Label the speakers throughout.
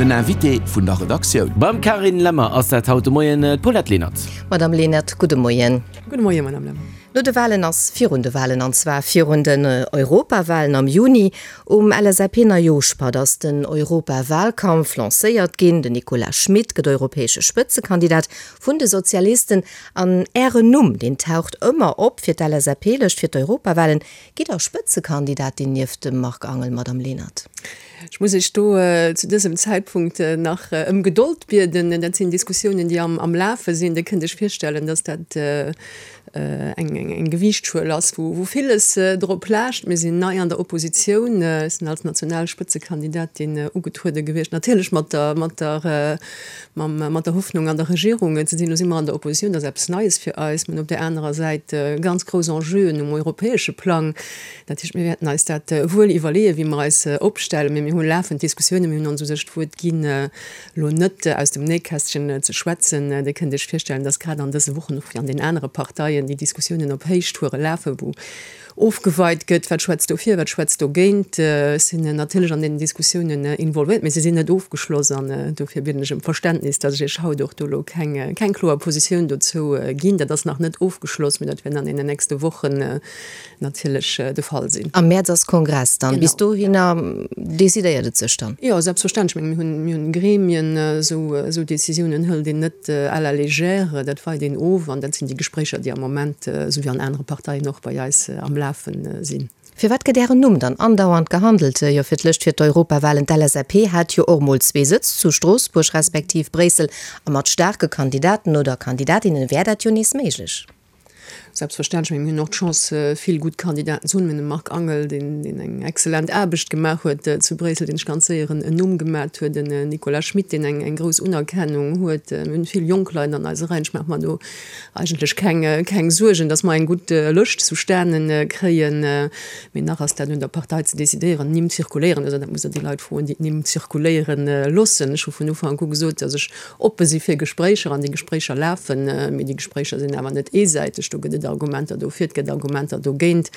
Speaker 1: Den Invité vun der Redaktioun.
Speaker 2: Beim Carine Lemmer ass dat haut de Moien d'Paulette Lenert.
Speaker 3: Madame Lenert, gudde Moien.
Speaker 4: Gudde Moien, Madame Lemmer.
Speaker 3: No de Walen ass virun de Walen, an zwar virun den Europawalen am Juni. Um LSAP-Neijooschpatt ass den Europawalkampf lancéiert ginn. Den Nicolas Schmit gëtt europäesche Spëtzekandidat vun de Sozialisten. An Ären Numm, deen taucht ëmmer op fir d'LSAP-Lëscht fir d'Europawalen. Gitt Der Spëtzekandidatin nieft dem Marc Angel, Madame Lenert?
Speaker 4: Ech muss Iech do zu dësem Zäitpunkt nach ëm Gedold bieden. Dat sinn Diskussiounen, déi am Lafe sinn. Dir kënnt Iech virstellen, datt dat eng Gewiichtschuel ass, wou villes drop laascht. Mir sinn nei an der Oppositioun. Ech sinn als national Spëtzekandidatin ugetruede gewiescht, natierlech mat der, mat der, mat der Hoffnung, an der Regierung ze sinn. Elo si mer an der Oppositioun, dat ass eppes Neies fir eis. Mir hunn op där anerer Säit ganz grouss Enjeuen um europäesche Plang. Dat heescht, mir wäerten eis dat wuel iwwerleeën, wéi mer eis opstellen. Mee mir hu lafend Diskussiounen. Mir hunn ons u sech d'Wuert ginn, elo net aus dem Nähkästchen ze schwätzen. Dir kënnt Iech virstellen, dass grad an dëse Wochen och wéi an den anere Parteien déi Diskussiounen op Héichtoure lafen, wou ofgeweit gëtt, wat schwätzt dofir, wat schwätzt dogéint. Ech sinn natierlech an deenen Diskussiounen involvéiert, mee se sinn net ofgeschloss. An dofir bieden ech ëm Verständnis, dass ech Iech haut och do elo keng, keng kloer Positioun dozou ginn. Dat ass nach net ofgeschloss, mee dat wäert an deenen nächste Wochen natierlech de Fall sinn.
Speaker 3: Am Mäerz ass Kongress dann. Bis dohinner decidéiert et sech dann?
Speaker 4: Jo, selbstverständlech. Ech menge mir hunn Gremien, esou Décisiounen hëlt een net à la légère, dat weit een of an dat sinn déi Gespréicher, déi am Moment, esou wéi an anere Parteien och, bei eis am Lafe sinn.
Speaker 3: Firwat gëtt Ären Numm dann andauernd gehandelt? Jo, fir d'lëscht fir d'Europawahlen. D'LSAP hat jo och mol zwee Sëtz zu Stroossbuerg respektiv Bréissel a mat staarke Kandidaten oder Kandidatinnen wär dat jo nees méiglech.
Speaker 4: Selbstverständlech, mee mir hunn och d'Chance, vill gutt Kandidaten ze hunn. Mir hunn de Marc Angel, deen eng exzellent Aarbecht gemaach huet zu Bréissel, deen sech ganz séier en Numm gemat huet, den Nicolas Schmit, deen eng grouss Unerkennung huet. Mir hunn vill jonk Leit an eise Reien. Ech maache mer do eigentlech keng Suergen, datt mer eng gutt Lëscht zustane kréien. Mee nach ass dat un der Partei ze decidéieren. Nimm zirkuléieren, also dat musst Der déi Leit froen, déi d'Nimm zirkuléiere loossen. Ech hu vun Ufank u gesot, datt ech Oppe si fir Gespréicher an déi Gespréicher lafen, mee déi Gespréicher sinn awer net eesäiteg. Do gëtt et Argumenter dofir, et gëtt Argumenter dogéint.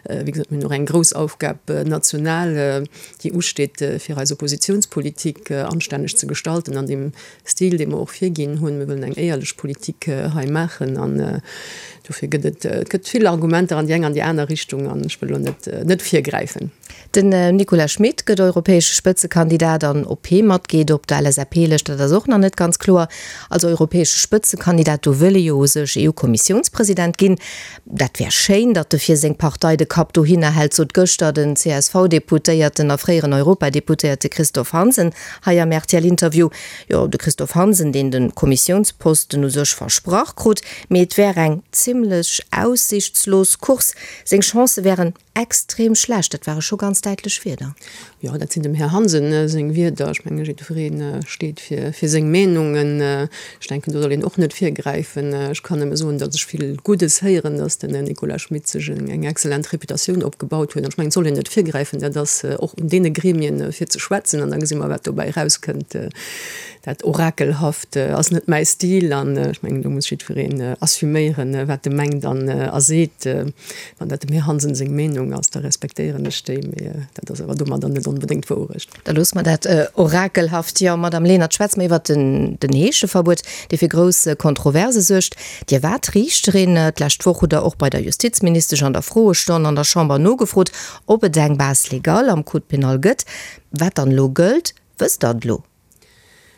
Speaker 4: Wéi gesot, mir hunn och eng grouss Aufgab national, déi usteet, fir eis Oppositionspolitik anstänneg ze gestalten an deem Stil, dee mer och virginn hunn. Mir wëllen eng éierlech Politik hei maachen an dofir gëtt et, et gëtt vill Argumenter an déi eng an déi aner Richtung an ech wëll elo net, net virgräifen.
Speaker 3: Den Nicolas Schmit gëtt europäesche Spëtzekandidat an ob hee matgeet op der LSAP-Lëscht, dat ass och nach net ganz kloer. Als europäesche Spëtzekandidat, do wëll e jo u sech EU-Kommissiounspresident ginn. Dat wär schéin, datt e fir seng Partei de Kapp dohinner hält, sot gëschter den CSV-Deputéierten a fréieren Europadeputéierte Christophe Hansen hei am RTL-Interview. Jo, de Christophe Hansen, deen de Kommissiounsposten u sech versprach krut, mee et wär eng zimmlech aussiichtslos Course, seng Chancë wären Extrem schlecht, dat ware scho ganz däitlech Wierder.
Speaker 4: Jo, dat sinn dem Här Hansen seng Wierder. Ech menge jiddweree steet fir seng Meenungen. Ech denken, do soll een och net virgräifen. Ech kann nëmme soen, datt ech vill Guddes héieren, datt den Nicolas Schmit sech eng excellent Reputatioun opgebaut huet. An ech mengen, et soll een net virgräifen. Dat ass och un deene Gremien, fir ze schwätzen. An da gesi mer, wat dobäi erauskënnt. Dat Orakelhaft ass net mäi Stil. An ech mengen, do muss jiddwereen assuméieren, wat e mengt an a seet. Wann dat dem Här Hansen seng Meenung ass, da respektéieren ech déi, mee dat ass awer domadder net onbedéngt d'Wourecht.
Speaker 3: Da loosse mer dat orakelhaft. Jo, Madame Lenert, schwätze mer iwwert den Heescheverbuet, dee fir grouss Kontroverse suergt. Dir waart Riichterin. D'lescht Woch hutt Der och bei der Justizministesch an der Froestonn an der Chamber nogefrot, ob et eng Base légale am Code pénal gëtt. Wat dann elo gëllt, wësst Der et elo?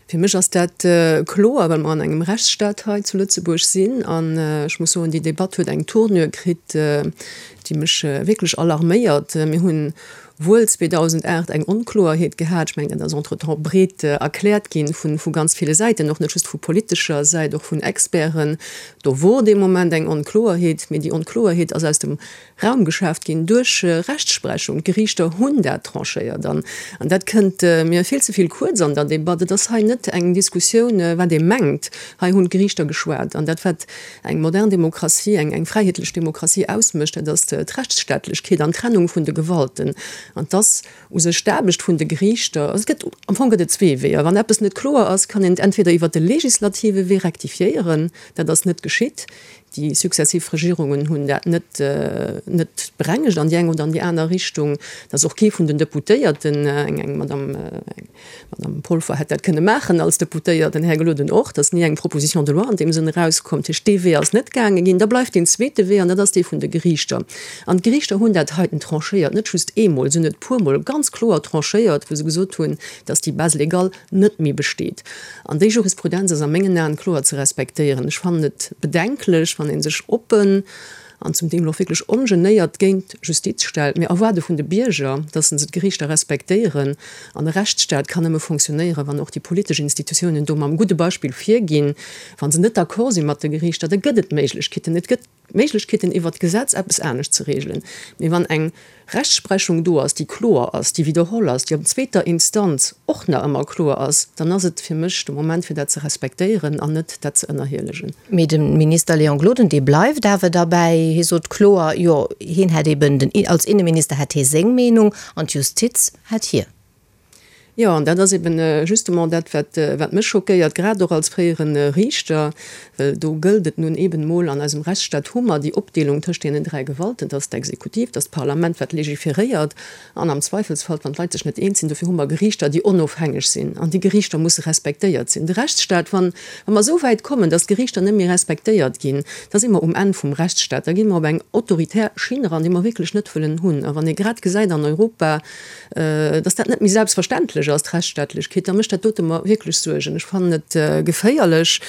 Speaker 4: Fir mech ass dat kloer, well mer an engem Rechtsstaat hei zu Lëtzebuerg sinn. An ech muss soen, déi Debatt huet eng Tournure kritt, déi mech wierklech alarméiert. Mir hunn wuel 2008 eng Onkloerheet gehat. Ech mengen, dat ass entretemps breet erkläert gi vu ganz ville Säiten, och net just vu politescher Säit, och vun Experten. Do wor dee Moment eng Onkloerheet, mee déi Onkloerheet ass aus dem Raum geschaaft ginn duerch Rechtsprechung. D'Geriichter hunn dat tranchéiert an dat kënnt mir vill ze vill kuerz an der Debatt. Et ass hei net eng Diskussioun, wat ee mengt. Hei hunn d'Geriichter geschwat an dat, wat eng modern Demokratie, eng fräiheetlech Demokratie ausmécht, dat ass d'Rechtsstaatlechkeet an d'Trennung vun de Gewalten. An 't ass u sech d'Aarbecht vun de Geriichter. Also et gëtt, am Fong gëtt et zwee Weeër. Wann eppes net kloer ass, kann een et entweder iwwert de legislative Wee rektifiéieren, dat ass net geschitt. Déi successiv Regierungen hunn dat net net berengegt an déi eng oder an déi aner Richtung. Et ass och kee vun den Deputéierten, eng eng Madame eng Madame Polfer hätt dat kënne maachen als Deputéiert, den Här Gloden och, et ass ni eng Proposition de loi an deem Sënn erauskomm. Dat heescht, dee Wee ass net gaange ginn. Da bleift deen zweete Wee an dat ass dee vun de Geriichter. An d'Geriichter hunn dat heiten tranchéiert, net just eemol, se hunn et puermol ganz kloer tranchéiert, wou se gesot hunn, dass déi Base légale net méi besteet. An déi Jurisprudenz ass a mengen Aen kloer ze respektéieren. Ech fannen et bedenklech, wann ee sech oppen an zum Deel och wierklech ongenéiert géint d'Justiz stellt. Mir erwaarde vun de Bierger, dass se d'Geriichter respektéieren. An e Rechtsstaat kann nëmme fonctionnéieren, wann och déi politesch Institutiounen do mam gudde Beispill virginn. Wa se net d'accord si mat de Geriichter, da gëtt et Méiglechkeeten. Et gëtt Méiglechkeeten, iwwert d'Gesetz eppes anescht ze regelen. Mee wann eng Rechtsprechung do ass, déi kloer ass, déi widderholl ass, déi op zweeter Instanz och nach ëmmer kloer ass, dann ass et fir mech de Moment, fir dat ze respektéieren an net dat ze ënnerhielegen.
Speaker 3: Mee de Minister Léon Gloden, dee bleift awer derbäi. Hie sot kloer, jo, hien hätt eben den, als Inneminister hätt hie seng Meenung an d'Justiz hätt hir.
Speaker 4: Jo, an dat ass eben justement dat, wat, wat mech schockéiert, grad och als fréiere Riichter, well do gëllt et nun eben emol, an eisem Rechtsstaat hu mer déi Opdeelung tëscht deenen 3 Gewalten, dat ass d'Exekutiv, dat ass d'Parlament, wat legiferéiert, an am Zweifelsfall, wann d'Leit sech net eens sinn, dofir hu mer Geriichter, déi onofhängeg sinn, an déi Geriichter musse respektéiert sinn. De Rechtsstaat, wann, wa mer esou wäit kommen, datt d'Geriichter net méi respektéiert ginn, da si mer um Enn vum Rechtsstaat, da gi mer op eng autoritär Schinn eran, déi mer wierklech net wëllen hunn. A wann ee grad gesäit an Europa, dass dat net méi selbstverständlech ass, d'Rechtsstaatlechkeet, da mécht dat dote mer wierklech Suergen. Ech fannen et geféierlech.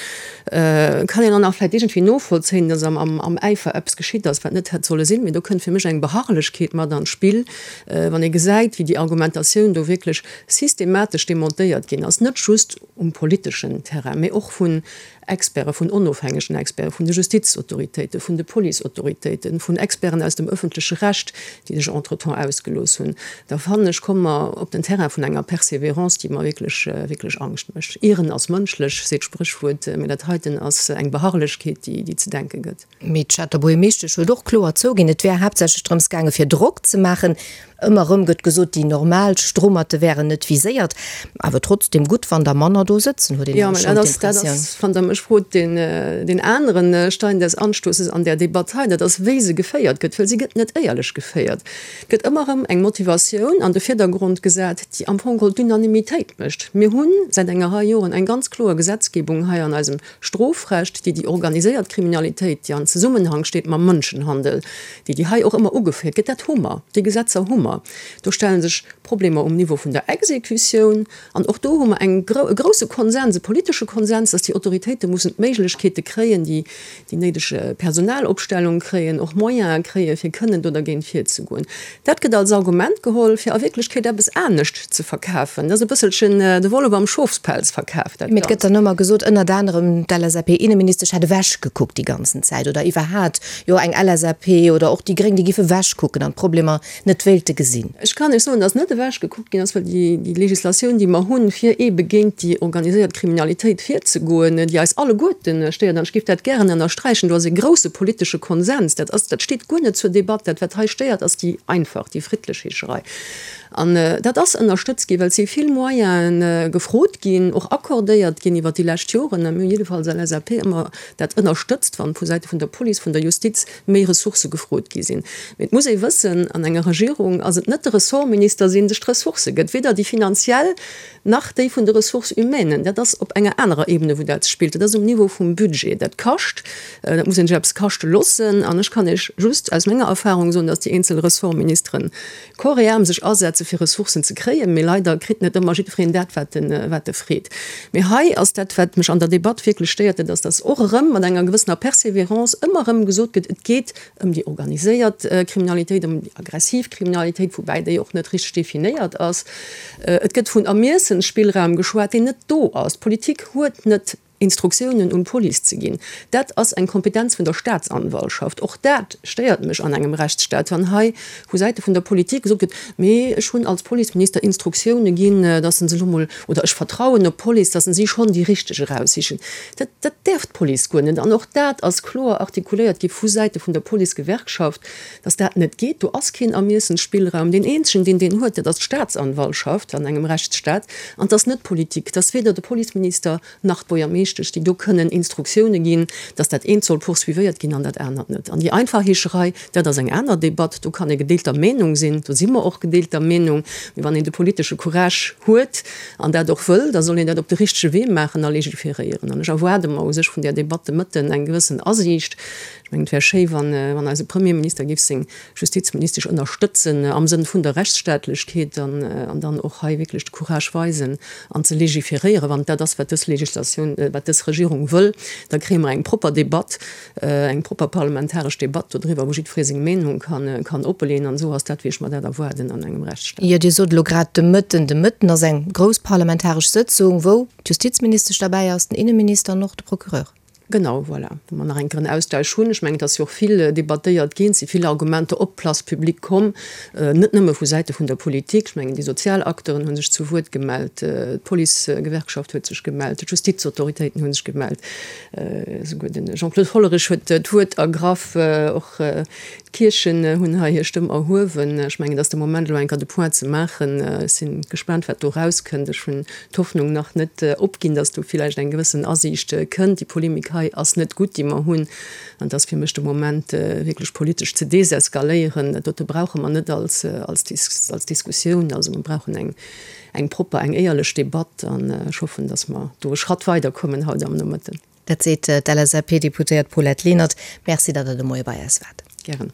Speaker 4: Kann een dann nach vläicht iergendwéi novollzéien, dass am Äifer eppes geschitt ass, wat net hätt solle sinn. Mee do kënnt fir mech eng Beharrlechkeet mat an d'Spill, wann ee gesäit, wéi déi Argumentatioun do wierklech systematesch demontéiert ginn ass, net just um politeschen Terrain, mee och vun Experte, vun onofhängegen Experten, vun de Justizautoritéiten, vun de Policeautoritéiten, vun Experten aus dem öffentleche Recht, déi sech entretemps ausgelooss hunn, da fannen ech, komme mer op den Terrain vun enger Persévérance, déi mer wierklech, wierklech Angscht mécht. Ieren ass mënschlech, seet d'Spréchwuert, mä dat heiten ass eng Beharrlechkeet, déi, déi ze denke gëtt.
Speaker 3: Mee d'Stater Buergermeeschtesch huet och kloer zouginn, et wär haaptsächlech drëms gaange fir Drock ze maachen. Ëmmer erëm gëtt gesot, déi normal Strommerte wären net viséiert. Awer trotzdeem gutt, wann der manner do sëtzen, huet een
Speaker 4: nämlech schonn d'Impressioun. Jo, mä dat ass, wann Der mech frot, deen anere Stein des Anstoßes an där Debatt hei, dat ass, wéi se geféiert gëtt, well si gëtt net éierlech geféiert. Et gëtt ëmmer erëm eng Motivatioun an de Virdergrond gesat, déi am Fong geholl d'Unanimitéit mécht. Mir hu säit enger Rei Joren eng ganz kloer Gesetzgebung hei an eisem Strofrecht, déi déi organiséiert Kriminalitéit, déi an Zesummenhang steet mam Mënschenhandel, déi déi hei och ëmmer ugeféiert gëtt, dat hu mer, déi Gesetzer hu mer. Do stelle sech Problemer um Niveau vun der Exekutioun an och do hu mer eng, e grouse Konsens, e politesche Konsens, dass déi Autoritéite mussen d'Méiglechkeete kréien, déi déi néideg Personalopstellung kréien, och Moyene kréien, fir kënnen do dergéint virzegoen. Dat gëtt als Argument geholl, fir a Wierklechkeet eppes anescht ze verkafen. Dat ass e bësselchen de Wollef am Schofspelz verkaf,
Speaker 3: dat Mee et gëtt Ganzt. dann ëmmer gesot, ënnert anerem d'LSAP-Inneministesch hätt ewechgekuckt déi ganzen Zäit oder iwwerhat, jo eng LSAP oder och déi Gréng, déi géife ewechkucken an d'Problemer net wéilte gesinn.
Speaker 4: Ech kann Iech soen, datt net ewechgekuckt ginn ass, well déi Legislatioun, déi mer hunn, fir eebe géint déi organiséiert Kriminalitéit virzegoen, déi eis alleguerten stéiert, an ech géif dat gären ënnersträichen, do ass e grouse politesche Konsens, dat ass, dat steet guer net zur Debatt. Dat, wat hei stéiert, ass déi einfach, déi friddlech Heescherei. An dat ass ënnerstëtzt ginn, well et si vill Moyene gefrot ginn, och accordéiert ginn iwwert déi lescht Joren. A mir hunn jiddefalls als LSAP ëmmer dat ënnerstëtzt, wann vu Säite vun der Police, vun der Justiz méi Ressourcë gefrot gi sinn. Mee et muss ee wëssen, an enger Regierung ass et net de Ressortminister, deen sech d'Ressourcë gëtt, weder déi finanziell nach déi vun de Ressources humaines. Dat ass op enger anerer Ebene, wou dat spillt. Dat ass um Niveau vum Budget. Dat kascht, dat muss een sech eppes kaschte loossen. An ech kann Iech just aus menger Erfahrung soen, datt déi eenzel Ressortministeren corps et âme sech asetze fir Ressourcen ze kréien, mee leider kritt net ëmmer jiddwereen dat, wat en, wat e freet. Mee hei ass dat, wat mech an der Debatt wierklech stéiert, dat ass, dass och erëm mat enger gewëssener Persévérance ëmmer erëm gesot gëtt, et geet ëm déi organiséiert Kriminalitéit, ëm déi aggressiv Kriminalitéit, woubäi déi och net richteg definéiert ass. Et gëtt vun Ermiessensspillraum geschwat, deen net do ass. D'Politik huet net Instruktiounen un d'Police ze ginn, dat ass eng Kompetenz vun der Staatsanwaltschaft. Och dat stéiert mech an engem Rechtsstaat, wann hei vu Säite vun der Politik gesot gëtt, mee ech hunn als Policeminister Instruktioune ginn, datt se elo mol, oder ech vertrauen op d'Police, datt si schonn déi Richteg eraussichen. Dat, dat däerf d'Police guer net. An och dat ass kloer artikuléiert gi vu Säite vun der Policegewerkschaft, datt dat net geet. Do ass keen Ermiessensspillraum. Deen eenzegen, deen deen huet, dat ass d'Staatsanwaltschaft an engem Rechtsstaat. An et ass net d'Politik. Et ass weder de Policeminister, nach d'Buergermeeschtesch. Justizministesch, déi do kënnen Instruktioune ginn, datt dat eent soll poursuivéiert ginn an dat anert net. An déi einfach Heescherei, dat ass eng aner Debatt, do kann ee gedeelter Meenung sinn, do si mer och gedeelter Meenung, mee wann een de politesche Courage huet an dat och wëll, da soll een dat op de richtege Wee maachen a legiferéieren. An ech erwaarde mer u sech vun där Debatt de Mëtten eng gewëssen Asiicht. Ech mengen, et wär schéi, wann eise Premierminister géif seng Justizministesch ënnerstëtzen am Sënn vun der Rechtsstaatlechkeet an dann och hei wierklech de Courage weisen an ze legiferéieren, wann et dat ass, wat dës Legislatioun, wat dës Regierung wëll, da kréie mer eng propper Debatt, eng propper parlamentaresch Debatt dodriwwer, wou jiddweree seng Meenung kann oppeleeën. An esou ass dat, wéi ech mer dat erwaarden an engem Rechtsstaat.
Speaker 3: Jo, Dir sot elo grad de Mëtten. De Mëtten ass eng grouss parlamentaresch Sëtzung, wou d'Justizministesch derbäi ass, den Inneminister an och de Procureur.
Speaker 4: Genau, voilà, wou mer nach eng Kéier en Austausch hunn. Ech mengen, et ass jo och vill debattéiert ginn, et si vill Argumenter op d'Place publique komm, net nëmme vu Säite vun der Politik. Ech mengen, déi sozial Acteuren hu sech zu Wuert gemellt, d'Policegewerkschaft huet sech gemellt, d'Justizautoritéiten hu sech gemellt, esouguer de Jean-Claude Hollerich huet d'Wuert ergraff, och d'Kierchen hunn hei hir Stëmm erhuewen. Ech mengen, et ass de Moment, elo eng Kéier de Point ze maachen. Ech si gespaant, wat do erauskënnt. Ech hunn d'Hoffnung nach net opginn, dass do villäicht eng gewëssen Asiicht kënnt. Déi Polemik hei ass net gutt, déi mer hunn, an et ass fir mech de Moment wierklech politesch ze deseskaléieren. Dat dote brauche mer net als als Diskussioun. Also mer brauchen eng eng propper, eng éierlech Debatt an ech hoffen, dass mer do e Schratt weiderkommen haut am Nomëtten.
Speaker 3: Dat seet d'LSAP-Deputéiert Paulette Lenert. Merci, datt Der de Moie bei eis waart.
Speaker 4: Gären.